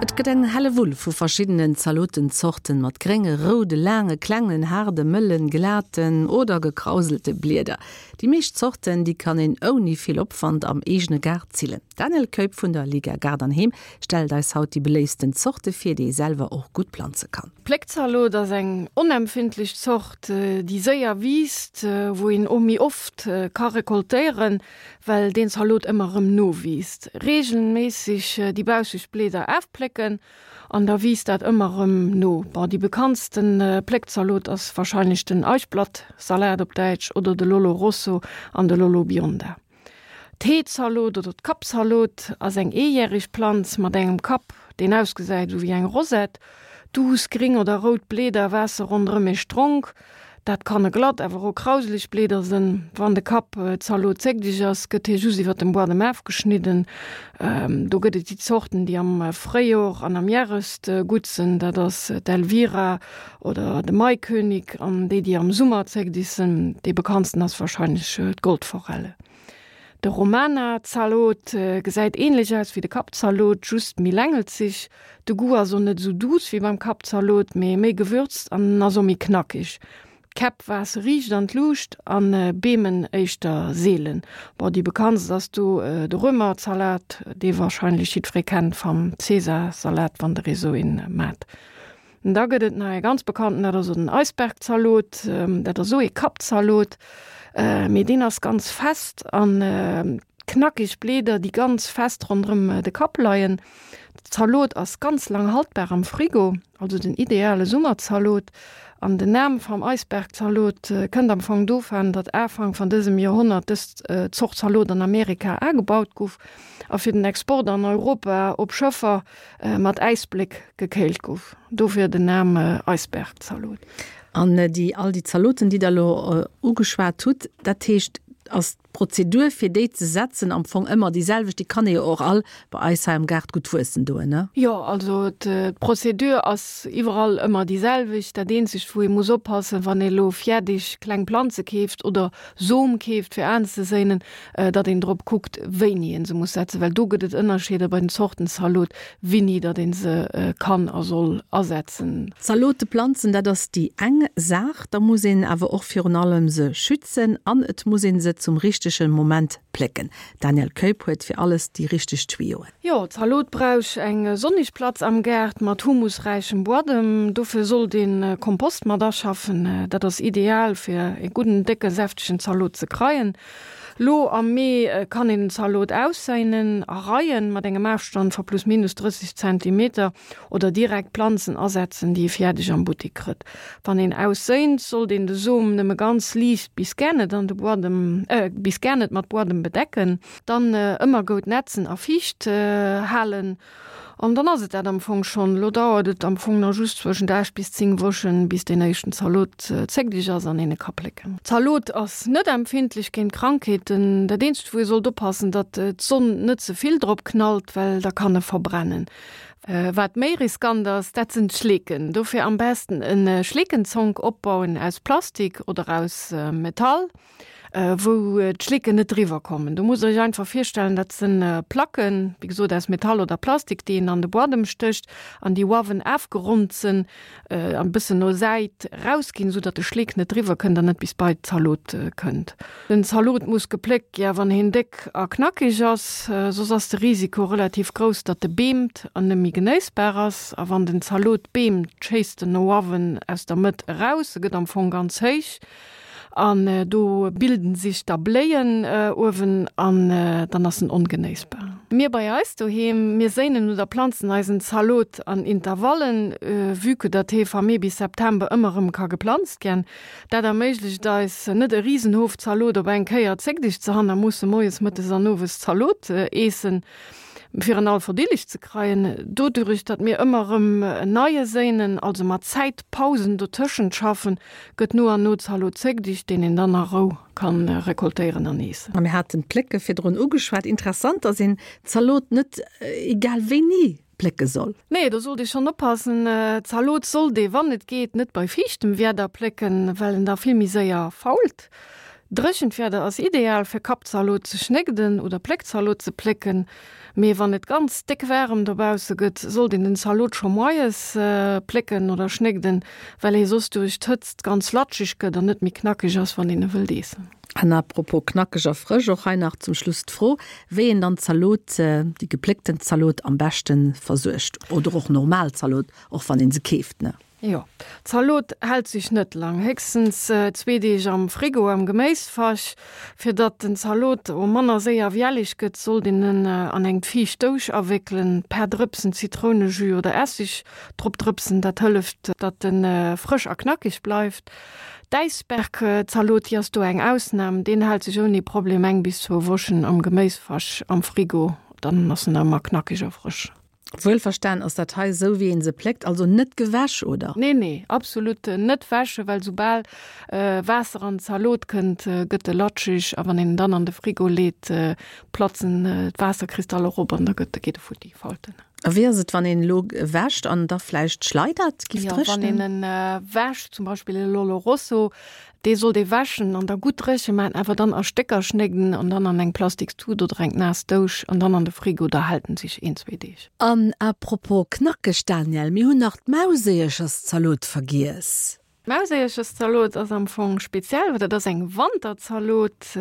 Et gëtt eng Hellewull vu verschiddenen Zalotenzorten mat grénge, roude, laange, klengen, haarde, mëllen, glaten oder gekrauselte Blieder. Déi meescht Zorten, déi kann een ouni vill Opwand am eegene Gaart zillen. D'Danièle Keup vun der Liga Gaart an Heem stellt eis haut déi beléiftsten Zorte vir, déi ee selwer och gutt planze kann. D'Pléckzalot ass eng onempfindlech Zort, déi séier wiisst, wou een och méi oft ka rekoltéieren, well deen Zalot ëmmer erëm nowiisst. Reegelméisseg déi bausseg Blieder afplécken an da wiisst dat ëmmer erëm no. Bon, déi bekanntsten Pléckzalot ass warscheinlech den Eichblattsalat op Däitsch oder de Lollo Rosso an de Lollo Bionda. D'Heezalot oder d'Kappzalot ass eng eejäreg Planz mat engem Kapp, deen ausgesäit esou wéi eng Rosette. Duuss gring oder rout Bleeder waasse ronderëm ee Stronk. Dat kanne glatt, awer och krauseleg Bleeder sënn. Wann de Kappzalot zéckdeg ass, gëtt hie just iwwer dem Buadem afgeschnidden. Do gëtt et déi Zorten, déi am Fréijor an am Järest gutt sënn, dat ass d'Elvira oder de Maikönig an déi, déi am Summer zéckdeg sënn, dee bekanntsten ass warscheinlech d'Goldforelle. De Romana-Zalot gesäit ähnlech aus wéi de Kappzalot, just méi längelzeg. De Goût ass och net esou duuss wéi beim Kappzalot, mee méi gewürzt an en ass och méi knackeg. D'Käpp waasse riicht an d'Luucht an beemen éischter seelen. Bon, déi bekanntst ass do de Römerzalat, dee warscheinlech jiddweree kennt vam Caesar-Salat, wann der ee sou een maat. Da gëtt et nach ee ganz bekannten, dat ass den Eisbergzalot. Dat ass och ee Kappzalot, mee deen ass ganz fest an knackeg Blieder, déi ganz fest ronderëm de Kapp leien. Zalot ass ganz lang haltbar am Frigo, also den ideale Summerzalot. An den Nam vam Eisbergzalot kënnt am Fong dovaan, datt Afank van dësem Joerhonnert dës Zort Zalot an Amerika aagebaut guff a fir den Export an Europa op Schëffer mat Äisbléck gekéilt gouf. Dofir den Nam Eisbergzalot. An déi, all déi Zaloten, déi Der elo ugeschwat hutt, dat heescht, ass d'Prozedur, fir déi ze setzen, am Fong ëmmer déi selwecht? Déi kann ee jo och all bei eis hei am Gaart gutt wuessen doen, ne? Jo, also d'Prozedur ass iwwerall ëmmer déi selwecht. Dat eenzegt, wou ee muss oppassen, wann ee elo fäerdeg kleng Planze keeft oder Som keeft, fir anzeséinen, datt een drop kuckt, wéini een se muss setzen, well do gëtt et Ënnerscheeder bei den Zorten Zalot, wéini datt een se kann a soll asetzen. Zalote planzen, dat ass déi eng Saach, da muss een awer och virun allem se schützen an et muss een se zum richtege Moment plécken. D'Danièle Keup huet fir alles déi richteg Tuyoen. Jo, Zalot brauch eng sonnig Platz am Gaart mat humusräichem Buadem. Dofir sollt een Kompost mat aschaffen. Dat ass ideal fir ee gudden, décken, säftegen Zalot ze kreien. Lo am Mee kann een den Zalot ausséinen a Reien mat engem Afstand va plus minus 30 Zentimeter oder direkt Planzen asetzen, déi ee fiärdeg am Buttik krëtt. Wann een ausséint, sollt een de Som nëmme ganz liicht bis gär net an de Buadem, bis gär net mat Buadem bedecken. Dann ëmmer goud nätzen a fiicht halen an dann ass et dat am Fong schonn. Lo dauert et am Fong nach just zwëschent 8 bis 10 Wochen bis deen éischten Zalot zéckdeg ass an een e ka plécken. Zalot ass net empfindlech géint Krankheeten. Dat eenzegt wou ee sollt oppassen, datt d'Sonn net ze vill drop knallt, well da kann e verbrennen. Wat méi riskant ass, dat sinn d'Schleeken. Dofir am besten e Schleekenzonk opbauen aus Plastik oder aus Metall. wou d'Schlécken net driwwer kommen. Do musst der iech einfach virstellen, dat sinn Placken, wéi gesot aus Metall oder Plastik, déi een an de Buadem stécht an déi uawen afgeronnt sinn an e bëssen no Säit rausginn, esou datt de Schleek net driwwer kënnt an net bis bei d'Zalot kënnt. Den Zalot muss gepléckt ginn, wann hien déck a knackeg ass, soss ass de Risiko relativ grouss, datt e beemt an net méi genéissbar ass. A wann den Zalot beemt, schéisst en no uawen aus der Mëtt eraus, e gëtt am Fong ganz héich. An do bilden sich da Bléien uewen an dann ass en ongenéissbar. Mir bei eis doheem, mir séinen oder planzen eisen Zalot an Intervallen, vue que datt hee va Mee bis September ëmmer erëm ka geplanzt gän. Dat erméiglecht eis, net e Risenhoof Zalot op eng Kéier zéckdeg ze han a musse moies, mëttes an owes Zalot eessen, fir en all verdilleg ze kreien. Dodurich, datt mir ëmmer erëm en neie séinen, also mat Zäitpausen dotëschent schaffen, Gëtt no an no Zalot zéckdicht, deen een dann a Rou kann rekoltéieren an eessen. A mir haten d'Plécke virdrun ugeschwat. Interessant, dass een Zalot net egal wéini plécke soll. Nee, do sollt ee schonn oppassen. Zalot sollt ee, wann et geet, net bei fiichtem Wieder plécken, well en da vill méi séier fault. Dréchent Wieder ass ideal fir Kappzalot ze schnégden oder Pléckzalot ze plécken, mee wann et ganz déck waarem dobausse gëtt, sollt een den Zalot scho moies plécken oder schnégden, well hie soss duerch d'Hëtzt ganz latscheg gëtt an net méi knackeg ass, wann een e wëllt eessen. An à propos knackeg a frësch, och hei nach zum Schluss d'Fro, wéi een dann d'Zalot, déi gepléckten Zalot am beschte versuergt oder och normal Zalot, och wann een se keeft, ne? Jo, d'Zalot hält sech net lang, héchstens zwee Deeg am Frigo am Geméisfach. Fir datt den Zalot o manner séier wiellig gëtt, sollt een en an eng fiicht Dousch awéckelen, per Drëpsen Zitrounejus oder Essig drop drëpsen, dat hëlleft datt en frësch a knackig bleift. D'Äisbergzalot, déi ass do eng Ausnam, deen hält sech ouni Problem eng bis zwou Wochen am Geméisfach am Frigo, dann ass en ëmmer knackig a frësch. Wuelverstan ass dat hei esou wéi een se pléckt, also net gewäsch, oder? Nee nee, absolut net wäschen, well soubal Waasser an d'Zalot kënnt, gëtt e latscheg a wann een en dann an de Frigo leet, platzen d'Waasserkristaller erop an da gëtt geet e futti, fault en. A wéi ass et wann een elo wäscht an da vläicht schleidert, giff Jo, wann een en wäscht, zum Beispill e Lollo Rosso, Dee sollt ee wäschen an da gutt dréche maachen, awer dann a Stécker schnégden an dann an eng plastiks Tut oder eng naass Dousch an dann an de Frigo, da hält en sech een, zwee Deeg. An à propos knackeg, Danièle, mir hunn nach d'Mauséiercherszalot vergiess. D'Mauséiercherszalot ass am Fong speziell, well dat ass eng Wanterzalot.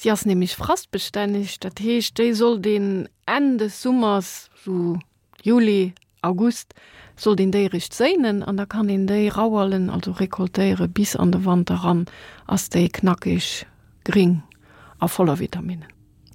Si ass nämlech frastbestänneg, dat heescht déi sollt een Enn des Summers, sou Juli, August sollt een déi eréischt séinen an da kann een déi rauerlen, also recoltéieren, bis an de Wanter ran ass déi knackeg, gring a voller Vitaminnen.